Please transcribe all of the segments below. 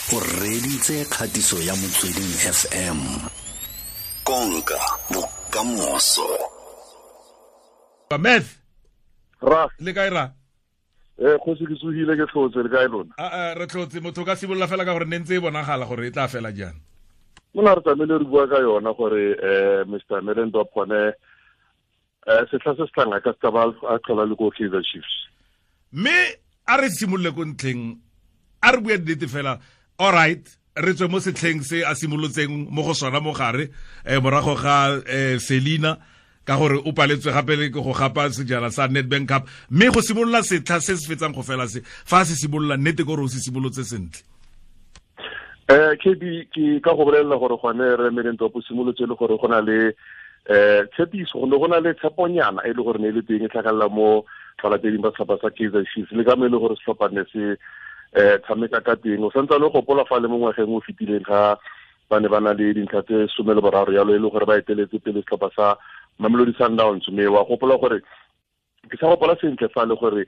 O reditse kgatiso ya Motsweding FM. Konka bokamoso. Meth. Ra. Le kae ra? Kgosi ke tsogile, ke tlhotse, le kae lona? A re tlhotse. Motho ka simolola fela ka gore ne ntse e bonagala gore e tla fela jang. Mona re tlamehile re bua ka yona gore Mr. Middendorp gone setlha se se tlang a ka se ba a tlhola le ko Kaizer Chiefs. Mme a re simolole ko ntlheng, a re bue nnete fela. All right, re tswe mo setlheng se a simolotseng mo go sona mo gare, morago ga Selina, ka gore o paletswe gape le go gapa sejana sa Nedbank Cup, mme go simolola setlha se se fetsang go fela se, fa se simolola nnete gore o se simolotse sentle. KB, ke ka go bolelela gore gone re Middendorp o simolotse le gore go na le tshepiso, go na le tsheponyana e le gore ne e le teng e tlhagelela mo balateding ba setlhopha sa Kaizer Chiefs, le ka mo e le gore setlhopha ne se tshameka ka teng. O santse le gopola fa le mo ngwageng o fetileng ga ba ne ba na le dintlha tse 13 yalo, e le gore ba eteletse pele setlhopha sa Mamelodi Sundowns. Mme wa gopola gore ke sa gopola sentle fa le gore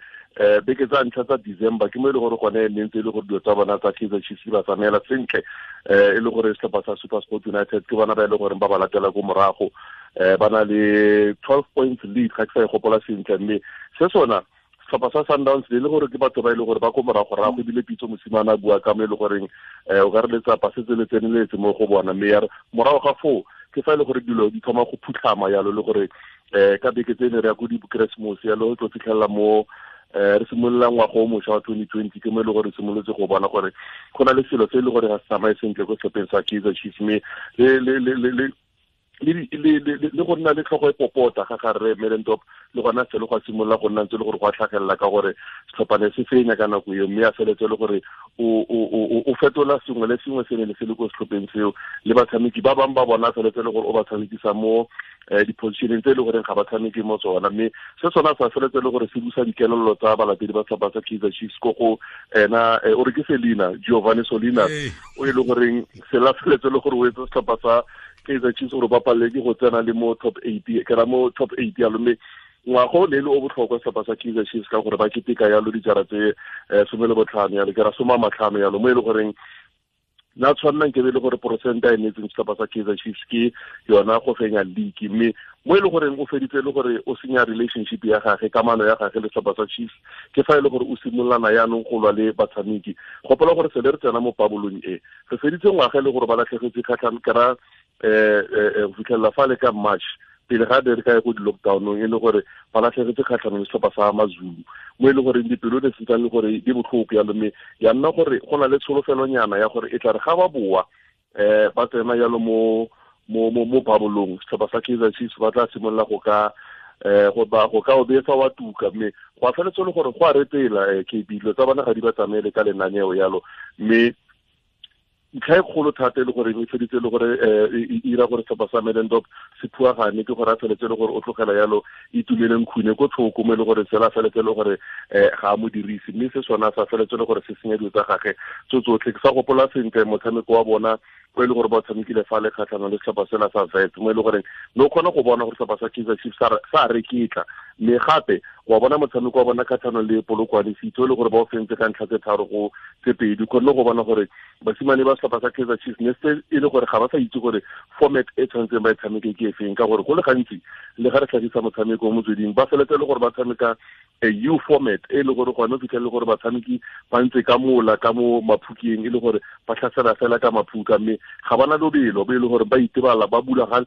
beke tsa ntlha tsa December ke mo e le gore gone ne ntse e le gore dilo tsa bona tsa Kaizer Chiefs di ba tsamaela sentle, e le gore setlhopha sa SuperSport United ke bona ba e le gore ba ba latela ko morago, ba na le 12 points lead, ga ke sa e gopola sentle. Mme se sona setlhopha sa Sundowns le gore ke batho ba e le gore ba ko morago-rago, ebile Pitso Mosimane a bua ka mo e le goreng o ka re letsapa setse le tseneletse mo go bona. Mme ya re morago ga foo ke fa e le gore dilo di thoma go phutlhama yalo, le gore ka beke tse ne re ya ko di-Keresemose yalo, tlo fitlhelela mo re simolola ngwaga o mošwa wa 2020, ke mo e le gore re simolotse go bona gore go na le selo se e le gore ga se tsamaye sentle ko setlhopheng sa Kaizer Chiefs. Mme le go nna le tlhogo e popota ga ga rre Middendorp, le gona selo go a simolola go nna ntse le gore go a tlhagelela ka gore setlhopha ne se fenya ka nako eo, mme a feletse le gore o fetola sengwe le sengwe se ne le se le ko setlhopheng seo, le batshameki ba bangwe ba bona a feletse le gore o ba tshamekisa mo di-positioneng tse e le goreng ga ba tshameke mo tsona. Mme se sona sa feletse le gore se busa dikelello tsa balatedi ba setlhopha sa Kaizer Chiefs ko go ena, o re ke Selina, Giovanni Solina, o e le goreng se la feletse le gore o etse setlhopha sa Kaizer Chiefs gore ba palele ke go tsena le mo top 8, ke ra mo top 8 yalo. Mme ngwaga o ne le o botlhokwa setlhopha sa Kaizer Chiefs ka gore ba keteka yalo dijara tse 15 yalo, ke ra 15 yalo, mo e le goreng na tshwannang ke be le gore porosente a e neetseng setlhopha sa Kaizer Chiefs ke yona go fenya league. Mme mo e le goreng o feditse le gore o senya relationship ya gage, kamano ya gage le setlhopha sa Chiefs, ke fa e le gore o simololana yaanong go lwa le batshameki. Gopola gore se le re tsena mo pabolong e, re feditse ngwaga e le gore ba latlhegetse kgatlhang, ke ra, go fitlhelela fa le ka March, pele ga re ka ya ko di-lockdown-ong, e le gore ba latlhegetse kgatlhanong le setlhopha sa Mazulu, mo e le goreng dipelo ne se ntsane le gore di botlhoko yalo. Mme ya nna gore go na le tsholofelonyana ya gore e tla re ga ba boa, ba tsena yalo mo babolong, setlhopha sa Kaizer Chiefs ba tla simolola go ka, go ba, go ka o betsa wa tuka. Mme go a feletse le gore go a retela, KB, dilo tsa bona ga di ba tsamaele ka lenaneo yalo. Mme ntlha e kgolo thata e le gore e feditse le gore, e ira gore setlhopha sa Middendorp se phuagane, ke gore a feletse le gore o tlogela yalo Itumeleng Khune ko thoko, mo e le gore sela feletse le gore, ga a mo dirise. Mme se sona sa feletse le gore se senya dilo tsa gage tso tsotlhe. Ke sa gopola sentle motshameko wa bona o e le gore ba tshamekile fa le kgatlhanong le setlhopha sela sa Wits, mo e le goreng ne o kgona go bona gore setlhopha sa Kaizer Chiefs sa reketla. Mme gape wa bona motshameko wa bona kgatlhanong le Polokwane City, o e le gore ba o fentse ka ntlha tse tharo go tse pedi. O kgonne go bona gore basimane ba setlhopha sa Kaizer Chiefs ne se e le gore ga ba sa itse gore format e tshwanetseng ba e tshameke ke efeng, ka gore go le gantsi le ga re tlhagisa motshameko mo motsweding, ba feletse le gore ba tshameka a U format e le gore gone o fitlhele gore batshameki ba ntse ka mola ka mo maphukeng, e le gore ba tlhasela fela ka maphuka, mme ga bana lobelo bo e le gore ba itebala, ba bula ga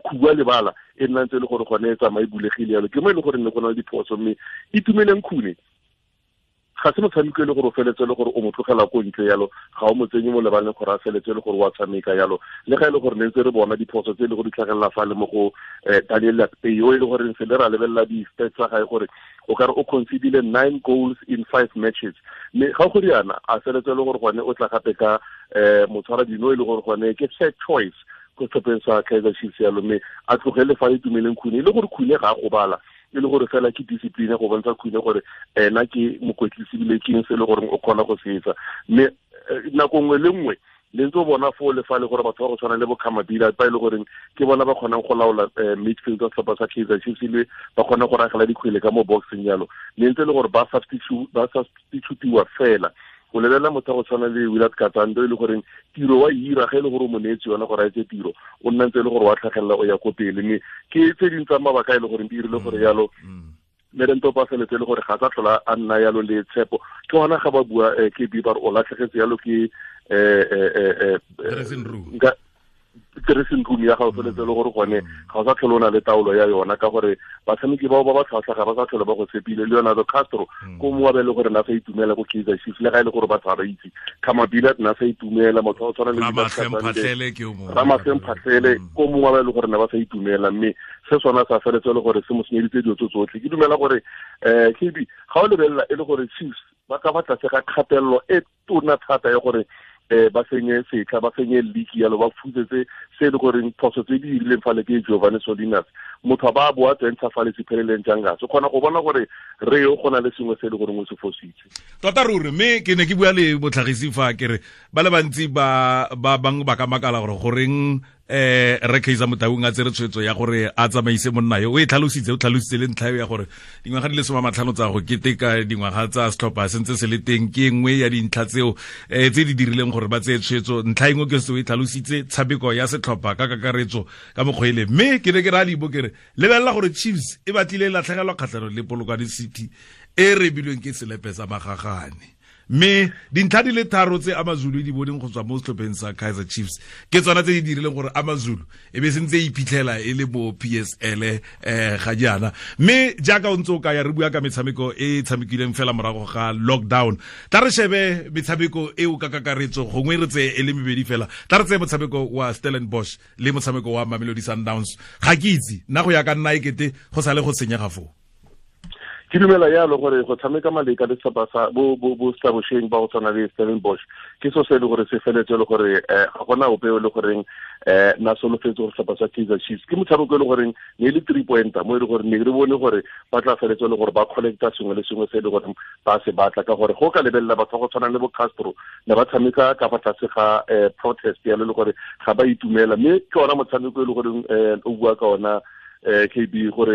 khubua lebala e nna ntse e le gore gone e tsamaye bulegile yalo. Ke mo e le gore ne go na le diphoso. Mme Itumeleng Khune ga se motshameko e le gore o feletse le gore o mo tlogela ko ntle yalo, ga o mo tsenye mo lebaleng gore a feletse le gore o a tshameka yalo. Le ga e le gore ne ntse re bona diphoso tse e le gore di tlhagelela fa le mo go, Daniel Akpeyi, o e le gore se le ra lebelela di-stats tsa gae gore o ka re o concedile 9 goals in 5 matches. Mme ga go riana a feletse le gore gone o tla gape ka, motshwara dino e le gore gone ke third choice ko setlhopheng sa Kaizer Chiefs yalo. Mme a tlogele fa Itumeleng Khune, e le gore Khune ga a gobala, e le gore fela ke discipline go bontsha Khune gore ena ke mokwetlisi ebile ke eng se e le gore o kgona go se etsa. Mme nako nngwe le nngwe le ntse o bona foo le fa le gore batho ba go tshwana le bo Khamabila ba e le goreng ke bona ba kgonang go laola, midfield wa setlhopha sa Kaizer Chiefs, le ba kgona go ragela dikgwele ka mo boxing yalo. Le ntse e le gore ba substitutiwa fela. O lebelela motho go tshwana le Willard Katsande, e le goreng tiro wa ira ge e le gore o mo neetse yona gore a etse tiro, o nna ntse e le gore wa tlhagelela o ya ko pele. Mme ke tse dingwe tsa mabaka e le goreng di dirile gore yalo Middendorp a feletse le gore ga sa tlhola a nna yalo le tshepo. Ke gona ga ba bua ke ba re o latlhegetse yalo ke dressing room dressing room ya gago, feletse le gore gone ga o sa tlhole o na le taolo ya yona, ka gore batshameki bao ba ba tlhwatlhwa ga ba sa tlhole ba go tshepile. Leonardo Castro ko mo wa be le gore na sa itumela ko Kaizer Chiefs, le ga e le gore batho ga ba itse. Khama Billiat na sa itumela, motho wa tshwana le Ramahlwe Mphahlele ko mongwe wa ba e le gore ne ba sa itumela, mme se sona sa feletse le gore se mo senyeditse dilo tse tsotlhe. Ke dumela gore KB, ga o lebelela e le gore Chiefs ba ka ba tlase ga kgatelelo e tona thata ya gore ba senye setlha, ba senye league yalo, ba fusetse se e le goreng phoso tse di dirileng fale ke Giovanni Solinas, motho a ba boa tsentsha fale Siphelele Ntshangase. O kgona go bona gore re yo go na le sengwe se e le goreng o se fositse tota ruri. Mme ke ne ke bua le botlhagisi fa ke re ba le bantsi ba bangwe ba ka makala gore goreng re Kaizer Motaung a tsere tshwetso ya gore a tsamaise monna yo. O e tlhalositse, o tlhalositse le ntlha ya gore dingwaga di le 50 tsa go keteka dingwaga tsa setlhopha sentse se le teng ke nngwe ya dintlha tseo tse di dirileng gore ba tseye tshwetso. Ntlha engwe ke se o e tlhalositse, tshameko ya setlhopha ka kakaretso ka mokgwa ele. Mme ke ne ke ra libo ke re lebelela gore Chiefs e batlile e latlhegelwa kgatlhanong le Polokwane City e rebilweng ke selepe sa magagane, mme dintlha di le tharo tse AmaZulu di boneng go tswa mo setlhopheng sa Kaizer Chiefs ke tsona tse di dirileng gore AmaZulu e be sentse e iphitlhela e le mo PSL ga jaana. Mme jaaka o ntse o kaya re bua ka metshameko e e tshamekileng fela morago ga lockdown, tla re shebe metshameko eo ka kakaretso, gongwe re tseye e le mebedi fela. Tla re tseye motshameko wa Stellenbosch le motshameko wa Mamelodi Sundowns. Ga ke itse nna go ya ka nna ekete go sale go senyega foo. Ke dumela yalo gore go tshameka maleka le setlhopha sa bo Stellenbosch ba go tshwana le Stellenbosch ke so se e le gore se feletse le gore ga gona ope le goreng na solofetse gore setlhopha sa Kaizer Chiefs ke motshameko e le goreng ne le 3 pointer mo e le gore ne re bone gore ba tla feletse le gore ba collecta sengwe le sengwe se e le gore ba se batla, ka gore go ka lebelela batho ba go tshwana le bo Castro ne ba tshameka ka fa tlase ga protest yalo le gore ga ba itumela. Mme ke ona motshameko e le goreng o bua ka ona KB gore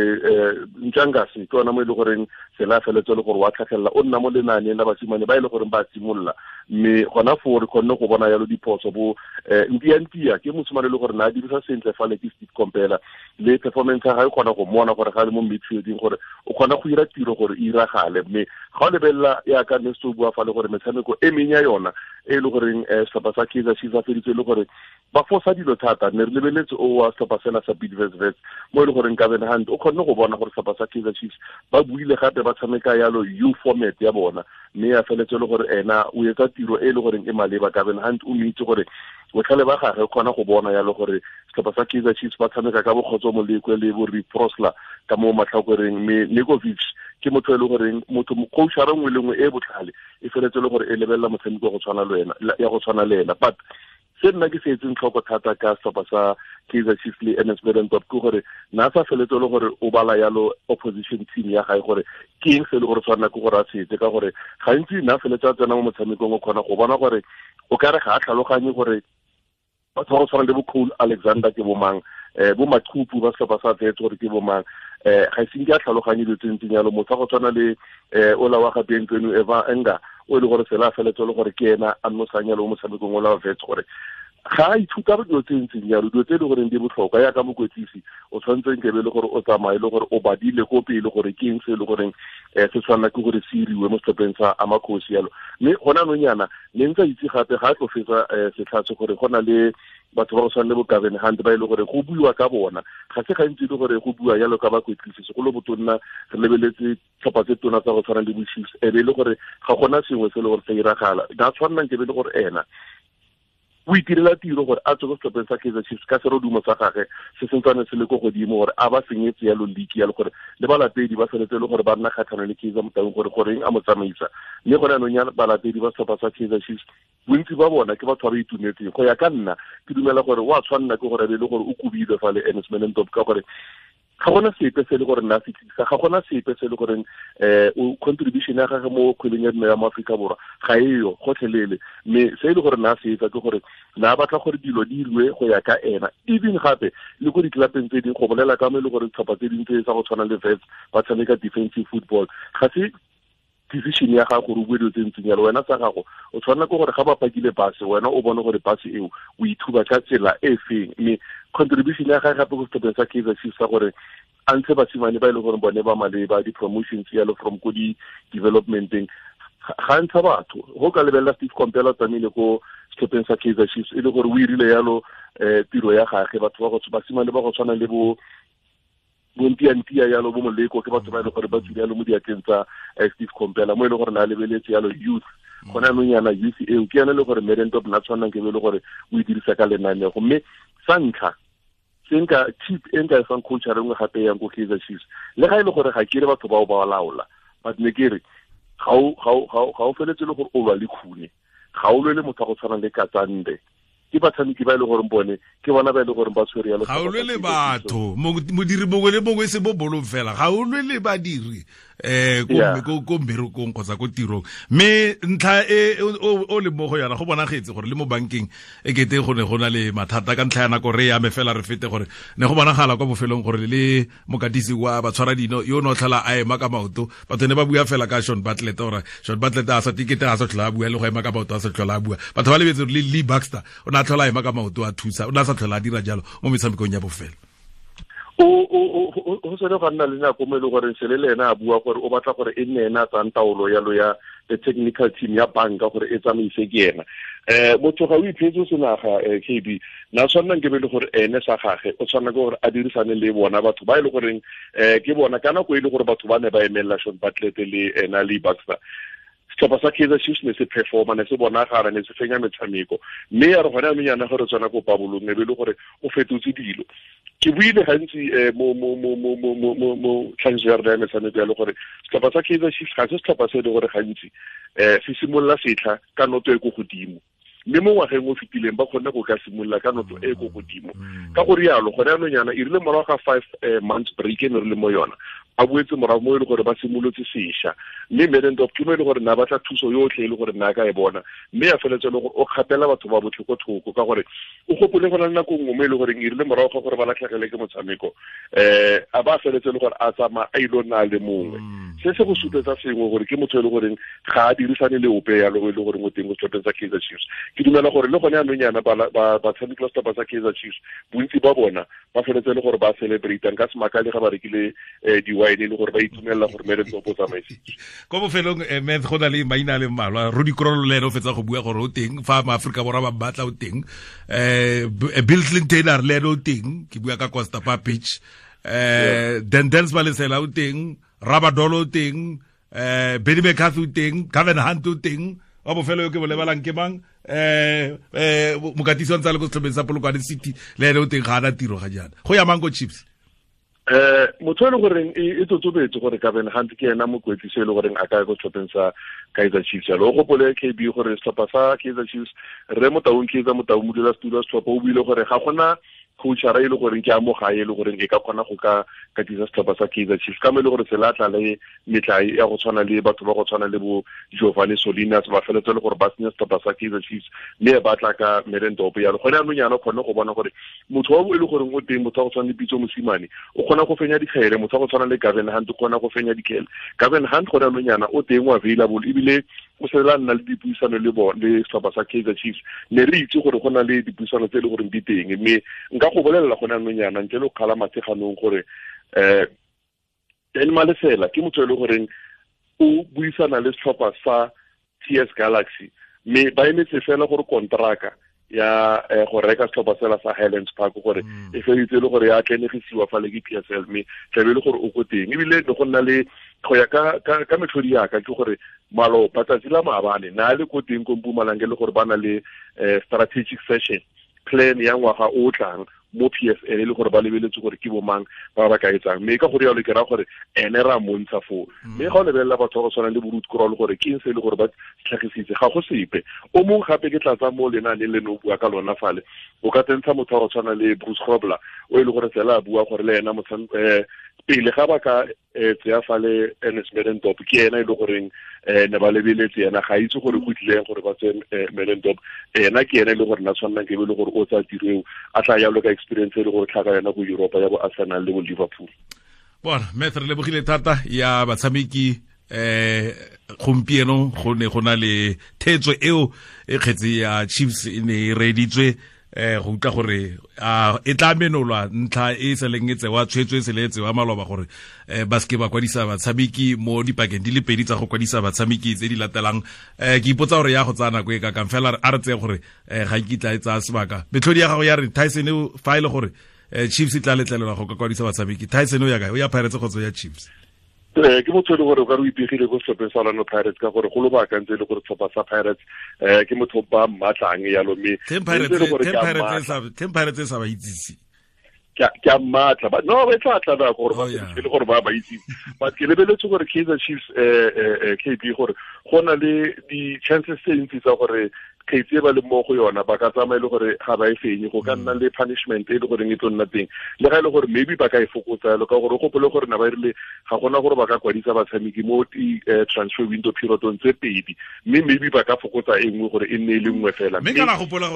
Ntshangase ke ona mo e le goreng sela feletse le gore wa tlhagelela o nna mo lenaaneng la basimane ba e le goreng ba simolola, mme gona foo re kgonne go bona yalo diphoso bo Ntia ke mosimane le gore na a dirisa sentle fale ke Steve Kompela, le performance ya gagwe kgona go mmona gore ga le mo midfielding gore o kgona go ira tiro gore e iragale. Mme ga o lebelela yaka ne se o bua fale gore metshameko e meng ya yona e le goreng setlhopha sa Kaizer Chiefs a feditse le gore ba fosa dilo thata, ne re lebeletse o wa setlhopha sena sa Bidvest Wits mo e le goreng Gavin Hunt o kgonne go bona gore setlhopha sa Kaizer Chiefs ba buile gape ba tshameka yalo U format ya bona, mme ya feletse le gore ena o etsa tiro e le goreng e maleba. Gavin Hunt o itse gore botlhale ba gagwe kgona go bona yalo gore setlhopha sa Kaizer Chiefs ba tshameka ka bokgotso Molekwe le bo Riprosla ka mo matlhakoreng, mme Nurkovic ke motho e le goreng motho coachara nngwe le nngwe e botlhale e feletse le gore e lebelela motshameko go tshwana le wena ya go tshwana le ena. But se nna ke se etseng tlhoko thata ka setlhopha sa Kaizer Chiefs le Ernest Middendorp ke gore na sa feletse le gore o bala yalo opposition team ya gae gore ke eng se le gore tshwanela ke gore a se etse, ka gore gantsi na feletse a tsena mo motshamekong o kgona go bona gore o kare ga a tlhaloganye gore batho ba go tshwana le bo Cole Alexander ke bo mang, bo Machupu ba setlhopha sa Wits gore ke bo mang, ga ise ke a tlhaloganye dilo tse ntseng yalo. Motho wa go tshwana le ola wa ga Bienvenu Eva Enga o e le gore sela feletse le gore ke ena a nnosang yalo mo motshamekong ola wa Wits, gore ga a ithuta dilo tse ntseng jalo, dilo tse e le goreng di botlhokwa yaka mokwetlisi o tshwanetse nke be le gore o tsamaye le gore o badile ko pele gore ke eng se e le goreng se tshwanela ke gore se iriwe mo setlhopheng sa Amakhosi yalo. Mme gona anong yana ne ntse a itse gape ga a tlo fetsa setlha se gore go na le batho ba go tshwana le bo Gavin Hunt ba e le gore go buiwa ka bona, ga se gantsi e le gore go bua jalo ka bakwetlisi, segolo botonna re lebeletse tlhopha tse tona tsa go tshwana le bo Chiefs, e be e le gore ga gona sengwe se e le gore se iragala. Na tshwanela nke be e le gore ena o itirela tiro gore a tswe ko setlhopheng sa Kaizer Chiefs ka serodumo sa gagwe se sentsane se le ko godimo, gore a ba senyetse yalo league yalo, gore le balatedi ba feletse le gore ba nna kgatlhanong le Kaizer Motaung gore goreng a mo tsamaisa. Mme gone anong ya balatedi ba setlhopha sa Kaizer Chiefs bontsi ba bona ke batho ba ba itumetseng. Go ya ka nna ke dumela gore o a tshwanela ke gore a be le gore o kobilwe fa le Ernest Middendorp, ka gore ga gona sepe se le gore nna se tlisa, ga gona sepe se le goreng o contribution ya gagwe mo kgweleng ya dinao ya mo Aforika Borwa ga eyo gotlhelele. Mme se e le gore nna se etsa ke gore na batla gore dilo di iriwe go ya ka ena, even gape le ko ditlelapeng tse dingwe go bolela ka mo e le gore ditlhopha tse dingwe tse tsa go tshwana le Wits ba tshameka defensive football, ga se decision ya gago gore o bue dilo tse ntseng jalo. Wena sa gago o tshwanela ke gore ga ba pakile base, wena o bone gore base eo o ithuba ka tsela e feng. Mme contribution ya gage gape ko setlhopheng sa Kaizer Chiefs sa gore a ntshe basimane ba e leng gore bone ba maleba di-promotions yalo from ko di-developmenteng, ga ntsha batho. Go ka lebelela Steve Komphela tsamaile ko setlhopheng sa Kaizer Chiefs e le gore o irile yalo tiro ya gage. Batho ba go basimane ba go tshwana le bo bontiantia yalo, bo Moleko, ke batho ba e leng gore ba tswile yalo mo diatleng tsa Steve Komphela, mo e leng gore na lebeletse yalo youth. Gona anong yana youth eo ke yone e le gore Middendorp na tshwanang ke be e le gore o e dirisa ka lenanego. Mme sa ntlha se nka tip e nka e fang coach a rengwe gape yang ko Kaizer Chiefs, le ga e le gore ga ke re batho bao ba laola, but ne ke re ga o feletse le gore o lwa le Khune, ga o lwe le motho a go tshwana le Katsande. Ke batshameki ba e leng gore bone ke bona ba e leng gore ba tshwere yalo. Ga o lwe le batho, modiri mongwe le mongwe se bo bolong fela, ga o lwe le badiri ko mmerekong kgotsa ko tirong. Mme ntlha e o le mo go yona go bonagetse gore le mo bankeng e kete go ne go na le mathata ka ntlha ya nako re ame fela re fete gore ne go bonagala kwa bofelong gore le mokatisi wa batshwara dino yo no tlhola a ema ka maoto. Batho ne ba bua fela ka Sean Bartlett, gore Sean Bartlett a sa tikete a sa tlhola a bua le go ema ka maoto a sa tlhola a bua. Batho ba lebetse gore le Lee Baxter o ne a tlhola a ema ka maoto a thusa, o ne a sa tlhola a dira jalo mo metshamekong ya bofelo. O sone ga nna le nako mo e leng gore sele le ena a bua gore o batla gore e nne ena a tsayang taolo yalo ya the technical team ya banka gore e tsamaise ke ena. Motho ga o iphetse senaga KB na tshwanang ke be le gore ene sa gage o tshwanela ke gore a dirisane le bona batho ba e le goreng ke bona ka nako e le gore batho ba ne ba emelela Sean Bartlett le ena le Baxter. Setlhopha sa Kaizer Chiefs ne se performa, ne se bonagala, ne se fenya metshameko. Mme ya re gone anong yana gore tswana ko pabolong e be le gore o fetotse dilo. Ke buile gantsi mo tlhagiso ya rona ya metshameko ya le gore setlhopha sa Kaizer Chiefs ga se setlhopha se e le gore gantsi se simolola setlha ka noto e ko godimo. Mme mo ngwageng o fetileng ba kgonne go ka simolola ka noto e ko godimo. Ka go rialo gone anong yana e rile morago ga 5 months break e ne re le mo yona, ba boetse morago mo e le gore ba simolotse sešwa. Mme Middendorp ke mo e le gore na batla thuso yotlhe e le gore na ka e bona, mme ya feletse le gore o kgapela batho ba botlhe ko thoko, ka gore o gopole go na le nako nngwe mo e le goreng e rile morago ga gore ba latlhegele ke motshameko a ba feletse le gore a tsamaya a ile nna le mongwe. Se se go supetsa sengwe gore ke motho e le goreng ga a dirisane le ope yalo e le goreng o teng go setlhopheng sa Kaizer Chiefs. Ke dumela gore le gone anong yana batshameki ba setlhopha sa Kaizer Chiefs bontsi ba bona ba feletse le gore ba celebrate-ang ka semakale ga ba rekile di-wine le gore ba itumelela gore Middendorp o tsamaisitse. Ko bofelong Matt, go na le maina a le mmalwa. Rudi Krol le ene o fetsa go bua gore o teng fa maAforika Borwa ba batla o teng. Bill Clinton a re le ene o teng, ke bua ka Costa Papic. Dendels Malesela o teng, Rabadolo o teng, Benny McCarthy o teng, Gavin Hunt o teng. Wa bofelo yo ke bo lebalang ke mang? Mokatisi wa ntse a le ko setlhopheng sa Polokwane City le ene o teng, ga ana tiro ga jaana. Go ya mang ko Chiefs? Motho e le goreng e totobetse gore Gavin Hunt ke ena mokwetlisi e le goreng a ka ya ko setlhopheng sa Kaizer Chiefs. Jalo o gopole KB gore setlhopha sa Kaizer Chiefs, Rre Motaung Kaizer Motaung modulasetulo wa setlhopha o buile gore ga gona coachara e le goreng ke a mo gae e le goreng e ka kgona go ka katisa setlhopha sa Kaizer Chiefs, ka mo e le gore se latla le metlae ya go tshwana le batho ba go tshwana le bo Giovanni Solinas ba feletse le gore ba senya setlhopha sa Kaizer Chiefs, mme ba tla ka Middendorp yalo. Gone anong yana o kgone go bona gore motho wa e le goreng o teng, motho wa go tshwana le Pitso Mosimane o kgona go fenya dikgele, motho wa go tshwana le Gavin Hunt o kgona go fenya dikgele. Gavin Hunt gone anong yana o teng o available, ebile o sela nna le dipuisano le bona le setlhopha sa Kaizer Chiefs. Ne re itse gore go na le dipuisano tse e le goreng di teng, mme nka go bolelela gone anong yana ntle le go kgala matsheganong gore Dan Malesela ke motho e le goreng o buisana le setlhopha sa TS Galaxy, mme ba emetse fela gore kontraka ya go reka setlhopha sela sa Highlands Park gore e feditse le gore ya tlenegisiwa fa le ke PSL, mme tlabe le gore o ko teng. Ebile ne go nna le go ya ka metlhodi yaka ke gore maloba tsatsi la maabane na le ko teng ko Mpumalanga le gore ba na le strategic session plan ya ngwaga o tlang mo PSL e le gore ba lebeletse gore ke bomang ba ba ka etsang. Mme ka gore yalo ke ra gore ene ra montsha foo. Mme ga o lebelela batho ba go tshwana le bo Ruth Krol gore ke eng se e le gore ba tlhagisitse, ga go sepe. O mongwe gape ke tlatsa mo lenaaneng le ne o bua ka lona fale, o ka tsentsha motho wa go tshwana le Bruce Grobler o e le gore fela a bua gore le ena pele ga ba ka tseya fale Ernest Middendorp ke ena e le goreng ne ba lebeletse ena, ga itse gore go tlileng gore ba tseye Middendorp. Ena ke ena e le gore na tshwanang ke be le gore o tsaya tiro eo a tla yalo ka experience e le gore tlhaka yona ko Europa ya bo Arsenal le bo Liverpool. Bona Matt, re lebogile thata ya batshameki Gompieno go ne go na le thetso eo e kgetse ya Chiefs e ne e reeditswe, go utlwa gore e tla menolwa ntlha e seleng e tsewa tshwetso e sele e tsewa maloba gore ba seke ba kwadisa batshameki mo dipakeng di le pedi tsa go kwadisa batshameki tse di latelang. Ke ipotsa gore ya go tsaya nako e kakang, fela a re tseye gore ga nkitla e tsaya sebaka. Metlhodi ya gago ya re Tyson, fa e le gore Chiefs e tla letlelelwa go ka kwadisa batshameki, Tyson o ya kae? O ya Pirates kgotsa ya Chiefs? Ke motho e le gore o ka re o ipegile ko setlhopheng sa Orlando Pirates, ka gore go lobaka ntse e le gore setlhopha sa Pirates ke motho ba mmatlang yalo, mme Ten Pirates e sa ba itsise. Ke a mmatla, but no, e tla tla nako gore ba e le gore ba ba itse. But ke lebeletse gore Kaizer Chiefs, KB, gore go na le di-chances tse ntsi tsa gore kgetsi e ba le mo go yona ba ka tsamaya e le gore ga ba e fenye, go ka nna le punishment e le goreng e tlo nna teng, le ga e le gore maybe ba ka e fokotsa yalo, ka gore o gopole gore na ba rile ga gona gore ba ka kwadisa batshameki mo di-transfer window periodong tse pedi, mme maybe ba ka fokotsa e nngwe gore e nne e le nngwe fela. Mme kana gopola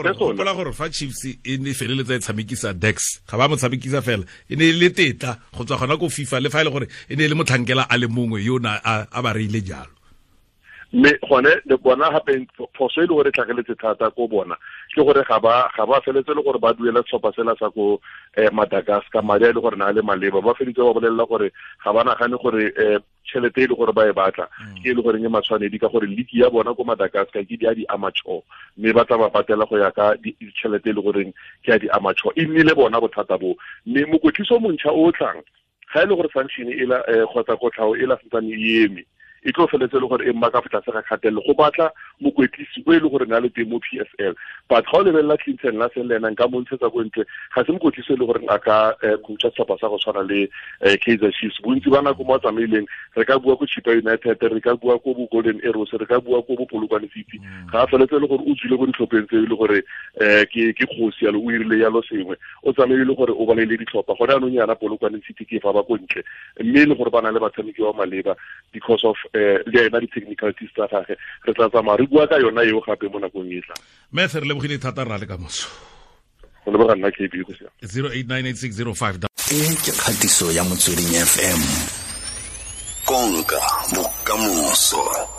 gore fa Chiefs e ne feleletsa e tshamekisa Dex, ga ba mo tshamekisa fela, e ne e le tetla go tswa gona ko FIFA, le fa e le gore e ne e le motlhankela a le mongwe yo na a ba reile jalo. Mme gone le bona gape phoso e le gore tlhageletse thata ko bona ke gore ga ba feletse le gore ba duela setlhopha sela sa ko Madagascar madi a e le gore na le maleba, ba feditse ba bolelela gore ga ba nagane gore tšhelete e le gore ba e batla ke e le goreng e matshwanedi, ka gore league ya bona ko Madagascar ke di a di-amateur, mme ba tla ba patela go ya ka tšhelete e le goreng ke ya di-amateur. E nnile bona bothata bo, mme mokwetlisi o montšha o tlang ga e le gore sanction e la kgotsa kotlhao e la santsane e eme, e tlo feletse le gore e mma ka fa tlase ga kgatelelo go batla mokwetlisi o e le gore na le teng mo PSL. But ga o lebelela Clinton Larsen le ena nka mo ntshetsa ko ntle, ga se mokwetlisi e le goreng a ka coacha setlhopha sa go tshwana le Kaizer Chiefs. Bontsi ba nako mo a tsamaileng, re ka bua ko Chippa United, re ka bua ko bo Golden Arrows, re ka bua ko bo Polokwane City, ga a feletse le gore o tswile ko ditlhopheng tse e le gore ke kgosi yalo, o irile yalo sengwe, o tsamaile le gore o baleile ditlhopha. Gone jaanong yana Polokwane City ke fa ba ko ntle, mme e le gore ba na le batshameki ba maleba because of le ena di-technicalities tsa gage. Re tla tsamaya re bua ka yona eo gape mo nakong e tlang. Mme re lebogile thata, rra, le kamoso. Go leboga nna, KB, go siame. 0898605. E ke kgatiso ya Motsweding FM. Konka bokamoso.